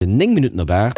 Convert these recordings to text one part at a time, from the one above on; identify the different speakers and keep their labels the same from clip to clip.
Speaker 1: 9 Minutten op 8.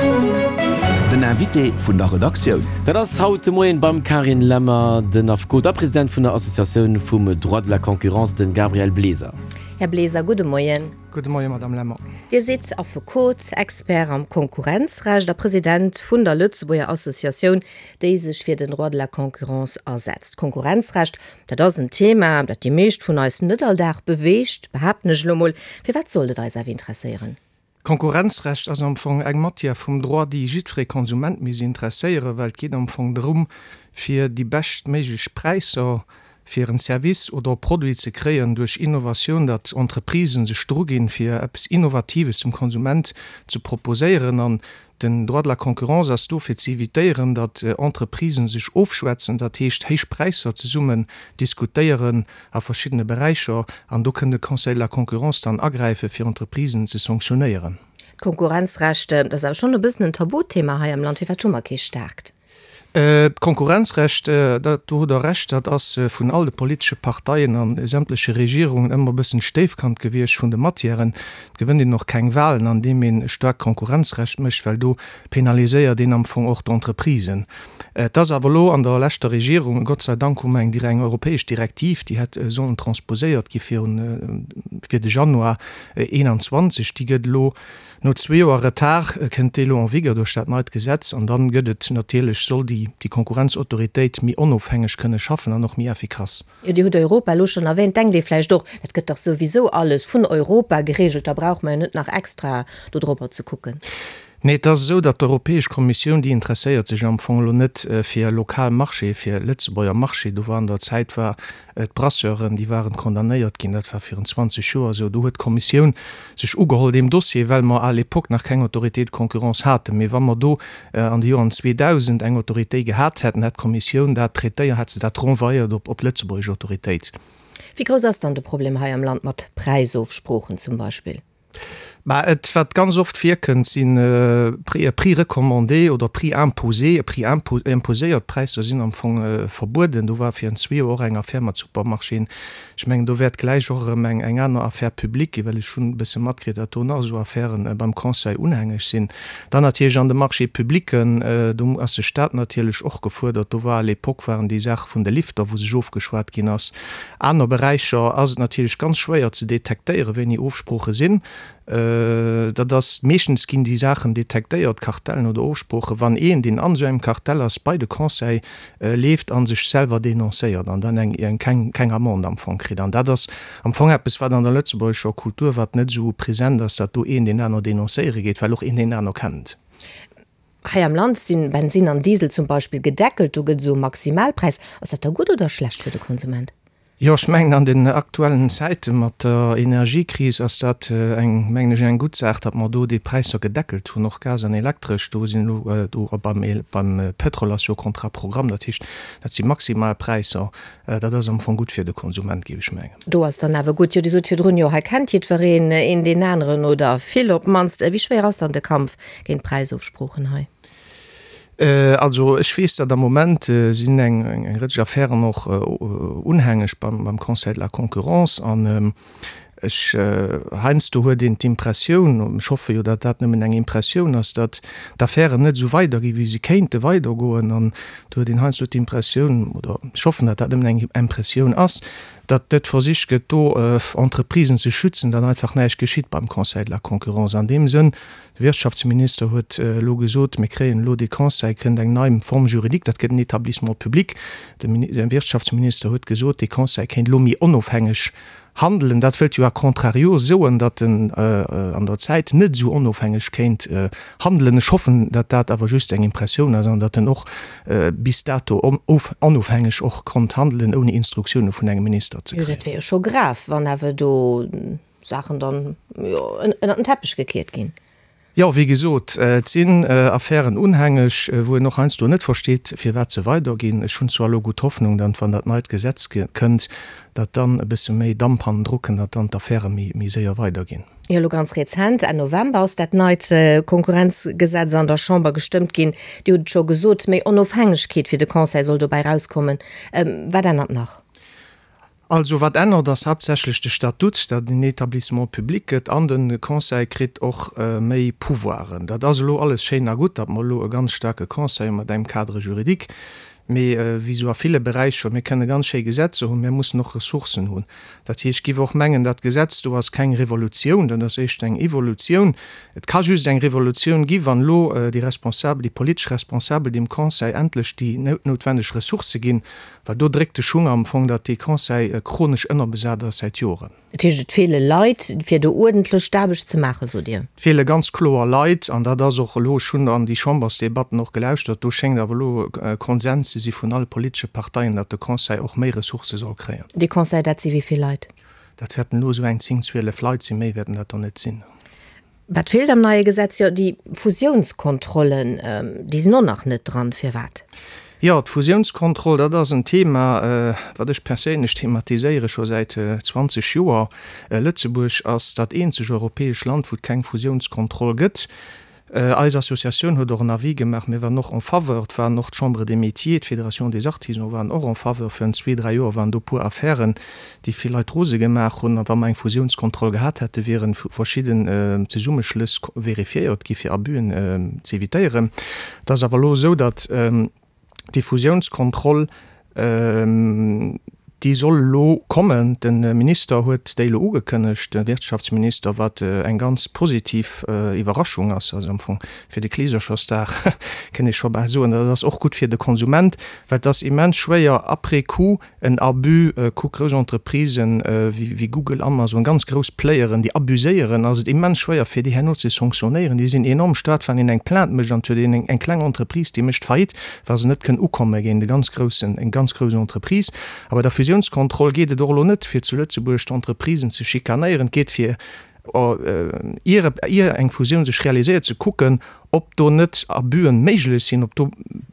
Speaker 2: Den Invité vun der Redaktioun.
Speaker 1: Dat ass haut de Moien beim Carine Lemmer den Affekot a President vun der Associatioun vum Droit de la Concurrence, de Gabriel Bleser.
Speaker 3: Här Bleser, gudde Moien.
Speaker 4: Gudde Moien, Madame Lemmer.
Speaker 3: Dir sidd Affekot, Expert am Konkurrenzrecht a President vun der Lëtzebuerger Associatioun, déi sech fir den Droit de la concurrence asetzt. Konkurrenzrecht, dat ass en Thema, dat déi meescht vun eis net all Dag beweegt, behaapten ech elo mol. Firwat sollt et eis awer interesséieren?
Speaker 4: D'Konkurrenzrecht ass am Fong eng Matière vum Droit, déi jiddweree Konsument misst interesséieren, well et geet am Fong drëm, fir déi beschtméiglech Präisser fir en Service oder e Produit ze kréien duerch Innovatioun, datt Entreprisen sech druginn, fir eppes Innovatives dem Konsument ze proposéieren. An Den Droit de la concurrence ass do fir ze evitéieren, datt Entreprisen sech ofschwätzen, dat heescht héich Präisser zesummen diskutéieren a verschiddene Beräicher. An do kënn de Conseil de la concurrence dann agräifen, fir Entreprisen ze sanktionéieren.
Speaker 3: D'Konkurrenzrecht, dat ass awer schonn e bëssen en Tabuthema hei am Land. Firwat hu mer kee staarkt?
Speaker 4: D'Konkurrenzrecht, dat, do hutt Der Recht, dat ass vun all de politesche Parteien a sämtleche Regierungen ëmmer e bëssen d'Stéifkand gewiescht vun de Matièren. Et gewënnt een och keng Wahlen, andeem een e staarkt Konkurrenzrecht mécht, well do penaliséiert een am Fong och d'Entreprisen. Et ass awer elo an der leschter Regierung, Gott sei Dank hu mer eng eng europäesch Direktiv, déi hätt sollen transposéiert gi virun, fir de Januar 21, déi gëtt elo, No zwee Joer Retard kënnt déi elo en vigueur duerch dat neit Gesetz an dann gëtt et natierlech, soll déi déi Konkurrenzautoritéit méi onofhängeg kënne schaffen an och méi effikass.
Speaker 3: Jo, Dir hutt Europa elo schonn erwähnt. Denkt ee vläicht och, dat gëtt dach souwisou alles vun Europa geregelt, da brauche mer jo net nach extra do drobber ze kucken.
Speaker 4: Nee, et ass esou, datt d'Europäesch Kommissioun, déi interesséiert sech am Fong elo net fir lokal Marché, fir Lëtzebuerger Marché. Do war an der Zäit war D'Brasseuren, déi waren condamnéiert ginn, dat war virun 20 Joer esou. Do huet d'Kommissioun sech ugeholl deem Dossier, well mer à l'époque nach keng Autorité de concurrence haten. Mee wa mer do an de Joren 2000 eng Autoritéit gehat hätten, hätt d'Kommissioun dat traitéiert, hätt se dat renvoyéiert op d'lëtzebuergesch Autoritéit.
Speaker 3: Wéi grouss ass dann de Problem hei am Land mat Präisofsproochen zum Beispill?
Speaker 4: Mä et, wat ganz oft virkënnt, si Prix recommandés oder Prix imposés. Prix imposéiert Präisser sinn am Fong verbueden. Do war virun zwee Joer och eng Affär mat Supermarchéen. Ech mengen, do wäert gläich och erëm eng aner Affaire publique ginn, well ech hunn e bësse matkritt, datt do nach esou Affäre beim Conseil unhängeg sinn. Dann natierlech an de Marchés publics, do ass de Stat natierlech och gefuerdert. Do war à l'époque waren déi Saache vun de Lifter, wou sech ofgeschwat ginn ass. Aner Beräicher ass et natierlech ganz schwéier ze detektéieren, wéini Ofsprooche sinn. Dat ass, meeschtens ginn déi Saachen detektéiert, Kartellen oder Ofsproochen, wann een, deen an esou engem Kartell ass, bei de Conseil leeft a sech selwer denoncéiert an dann eng keng keng Amende am Fong kritt. An dat ass am Fong eppes, wat an der lëtzebuergescher Kultur, wat net esou present ass, datt do een deen aner denoncéiere geet, well och een deen aner kennt.
Speaker 3: Hei am Land sinn Bensinn an Diesel zum Beispill gedeckelt, do gëtt esou e Maximalpräis. Ass dat da gutt oder schlecht fir de Konsument?
Speaker 4: Jo, ech mengen an den aktuellen Zäite mat der Energiekris ass dat eng, mengen ech, eng gutt Saach, datt mer do déi Präisser gedeckelt hunn, och Gas an Elektresch. Do sinn elo do beim beim Pétrol ass jo Contrat programme, dat heescht, dat si maximal Präisser. Dat ass am Fong gutt fir de Konsument, géif ech mengen.
Speaker 3: Do ass dann awer gutt. Jo, Dir sot virdrun, jo, hei kennt jiddwereen een deen aneren oder vill op d'mannst. Wéi schwéier ass dann de Kampf géint d'Präisofsproochen hei?
Speaker 4: Also ech weess, datt am Moment sinn eng Rëtsch Affären och unhängeg beim Conseil de la Concurrence an Ech, heiansdo huet een d'Impressioun, ech hoffe jo, datt dat nëmmen eng Impressioun ass, datt d'Affären net esou weiderginn, wéi se kéinte weidergoen. An do huet een heiansdo d'Impressioun, oder ech hoffen, datt dat nëmmen eng Impressioun ass, datt net versicht gëtt, do Entreprisen ze schützen, datt einfach näischt geschitt beim Conseil de la Concurrence. An deem Sënn, de Wirtschaftsminister huet elo gesot, mir kréien elo dee Conseil, kënnt eng nei Forme juridique, dat gëtt en Établissement public. De Wirtschaftsminister huet gesot, dee Conseil kéint elo méi onofhängeg Handelen, dat wëllt jo a contrario soen, datt en an der Zäit net esou onofhängeg kéint handelen. Ech hoffen, datt dat awer just eng Impressioun ass an datt en och bis dato onofhängeg och konnt handelen, ouni Instruktioune vun engem Minister ze
Speaker 3: kréien. Jo, dat wär jo scho grav, wann awer do Saachen dann ënnert den Teppech gekiert ginn.
Speaker 4: Jo, wéi gesot, et sinn Affären unhängeg, wou een och heiansdo net versteet, firwat se weiderginn. Ech hunn zwar elo gutt Hoffnung, datt, wann dat neit Gesetz kënnt, datt dann e bësse méi Damp hannendru kënnt, datt dann d'Affäre méi séier weiderginn.
Speaker 3: Jo, elo ganz rezent, Enn November, ass dat neit Konkurrenzgesetz an der Chamber gestëmmt ginn. Dir hutt et scho gesot, méi Onofhängegkeet fir de Conseil soll dobäi erauskommen. Wat ännert nach?
Speaker 4: Also wat ännert ass haaptsächlech de Statut, datt en Établissement public gëtt an de Conseil kritt och méi Pouvoiren. Dat ass elo alles schéin a gutt, datt mer elo e ganz staarke Conseil hu mat engem Cadre juridique, mee wéi esou a ville Beräicher, mir kënne ganz schéi Gesetzer hunn, mir mussen och Ressourcen hunn. Dat heescht, ech géif och mengen, dat Gesetz do ass keng Revolutioun, dat ass éischter eng Evolutioun. Et ka just eng Revolutioun gi wann elo déi Responsabel, déi politesch Responsabel dem Conseil endlech déi noutwenneg Ressourcë ginn, Well do dréckt de Schung am Fong, datt dee Conseil chronesch ënnerbesat ass säit Joren.
Speaker 3: Dat heescht, et feele Leit, fir do uerdentlech d'Aarbecht ze maachen, sot Dir?
Speaker 4: Et feele ganz kloer Leit, an dat ass och elo, ech hunn an déi Chambersdebatten och gelauschtert, do schéngt awer elo Konsens ze si vun alle politesche Parteien, datt de Conseil och méi Ressourcë soll kréien.
Speaker 3: Dee Conseil, dat si wéi vill Leit?
Speaker 4: Dat wäerten elo esou eng 10, 12 Leit sinn, méi wäerten dat der net sinn.
Speaker 3: Wat feelt am neie Gesetz? Jo, déi Fusiounskontrollen, déi sinn och nach net dran. Firwat?
Speaker 4: Jo, d'Fusiounskontroll, dat ass en Thema, wat ech perséinlech thematiséiere scho säit 20 Joer. Lëtzebuerg ass dat eenzeg europäesch Land, wou et keng Fusiounskontroll gëtt. Eis Associatioun huet och en Avis gemaach. Mir waren och en faveur. Et waren och d'Chambre des Métiers, d'Fédération des Artisans waren och en faveur. Virun zwee, dräi Joer waren do e puer Affären, déi vill Leit rose gemaach hunn. A wa mer eng Fusiounskontroll gehat hätten, wiere verschidden Zesummeschlëss vérifiéiert gi fir Abusen ze evitéieren. Et ass awer elo esou, datt déi Fusiounskontroll, déi soll elo kommen. De Minister huet déi elo ugekënnegt, de Wirtschaftsminister, wat eng ganz positiv Iwwerraschung ass. Also am Fong fir de Kleeserchersdag, kënnt ee scho bal soen. Dat ass och gutt fir de Konsument, well et ass immens schwéier après coup En Abus, kuck grouss Entreprisen wéi Google, Amazon, ganz grouss Playeren, déi abuséieren, ass et immens schwéier fir déi herno ze sanctionnéieren. Déi sinn enorm staark, wann een eng Plainte mécht an et huet een eng kleng Entreprise, déi mécht Faillite, wa se net kënn ukomme géint e ganz groussen, eng ganz grouss Entreprise. A bei der Fusiounskontroll geet et och elo net fir zu Lëtzebuerg d'Entreprisen ze schikanéieren, et geet fir ier ier eng Fusioun sech realiséiert, ze kucken, ob do net Abüen méiglech sinn, ob do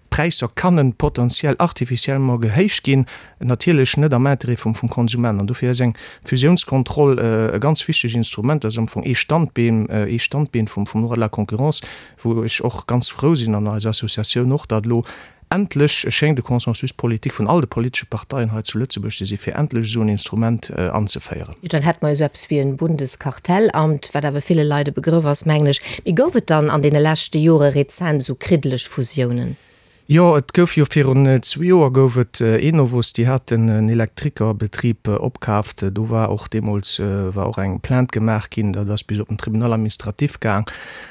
Speaker 4: Präisser kannen potentiell artificiellement gehéicht ginn, natierlech net am Intérêt vum vum Konsument. An dofir ass eng Fusiounskontroll e ganz wichteg Instrument. Dat ass am Fong ee Standbeen, ee Standbeen vum vum Droit de la concurrence, wou ech och ganz frou sinn, an eis Associatioun och, datt elo Endlech schéngt e Consensus politique vun all de politesche Parteien hei zu Lëtzebuerg ze si fir endlech esou en Instrument anzeféieren.
Speaker 3: Jo, dann hätte mer jo esou eppes wéi en Bundeskartellamt, wat awer ville Leit e Begrëff ass, mengen ech. Mee gouf et dann an deene leschte Jore rezent esou kriddeleg Fusiounen?
Speaker 4: Jo, et gouf jo virun zwee Joer gouf et Enovos, déi haten en Elektrikerbetrib opkaaft. Do war och deemools war och eng Plainte gemaach ginn, dat ass bis op den Tribunal administratif gaang.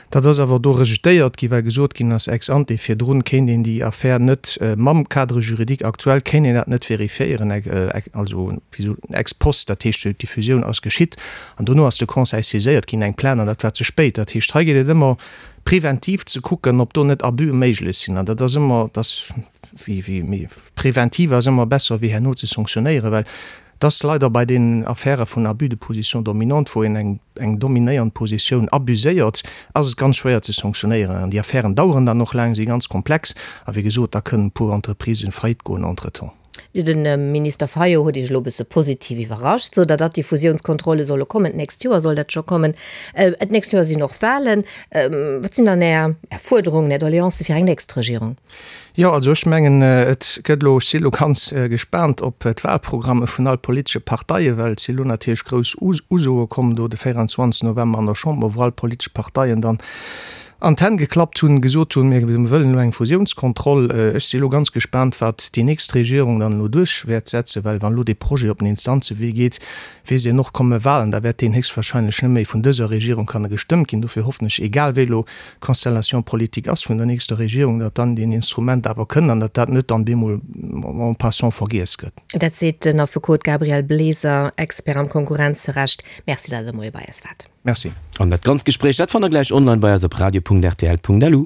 Speaker 4: Dat ass awer do rejetéiert ginn, well gesot ginn ass, ex ante, virdrun kéint een déi Affär net, mam Cadre juridique actuel kéint een dat net vérifiéieren, also ex post, dat heescht, déi Fusioun ass geschitt an dono ass de Conseil saiséiert ginn, eng Plainte, an dat war ze spéit. Dat heescht, hei geet et ëmmer preventiv ze kucken, ob do net Abuse méiglech sinn, an dat ass ëmmer, dat ass wéi, wéi, preventiv ass ëmmer besser wéi herno ze sanctionnéieren, well Et ass leider bei deenen Affäre vun Abus de position dominante, wou een eng eng dominéiernd Positioun abuséiert, ass et ganz schwéier ze sanctionéieren. An déi Affären daueren dann och laang, si ganz komplex. A wéi gesot, da kënnen e puer Entreprisen faillite goen entretemps.
Speaker 3: De Minister Fayot huet Iech elo e bësse positiv iwwerrascht, sot Der, datt déi Fusiounskontrolle solle kommen. D'nächst Joer soll dat scho kommen. D'nächst Joer sinn och Wahlen. Wat sinn dann Är Fuerderungen, Är Doleancë fir eng nächst Regierung?
Speaker 4: Jo, also ech mengen, et gëtt elo, ech si elo ganz gespaant op d'Wahlprogramme vun all politesche Parteien, well et si elo natierlech grouss Usoe komm do de 24 November an der Chamber, wou all politesch Parteien dann an d'Hänn geklappt hunn, gesot hunn, mir wëllen elo eng Fusiounskontroll. Ech si elo ganz gespaant, wat déi nächst Regierung dann elo duerch wäert setzen, well wann elo dee Projet op den Instanzewee geet, weess een och, komme Wahlen, da wäert deen héchstwahrscheinlech net méi vun dëser Regierung kanne gestëmmt ginn. Dofir hoffen ech, egal wéi elo d'Constellation politique ass vun der nächster Regierung, datt dann deen Instrument awer kënnt an datt dat net dann bemol en passant vergiess gëtt.
Speaker 3: Dat seet den Affekot Gabriel Bleser, Expert am Konkurrenzrecht. Merci, datt Der de Moie bei eis waart.
Speaker 4: Merci.
Speaker 1: An dat ganzt Gespréich, dat fannt der gläich online bei eis op radio.rtl.lu.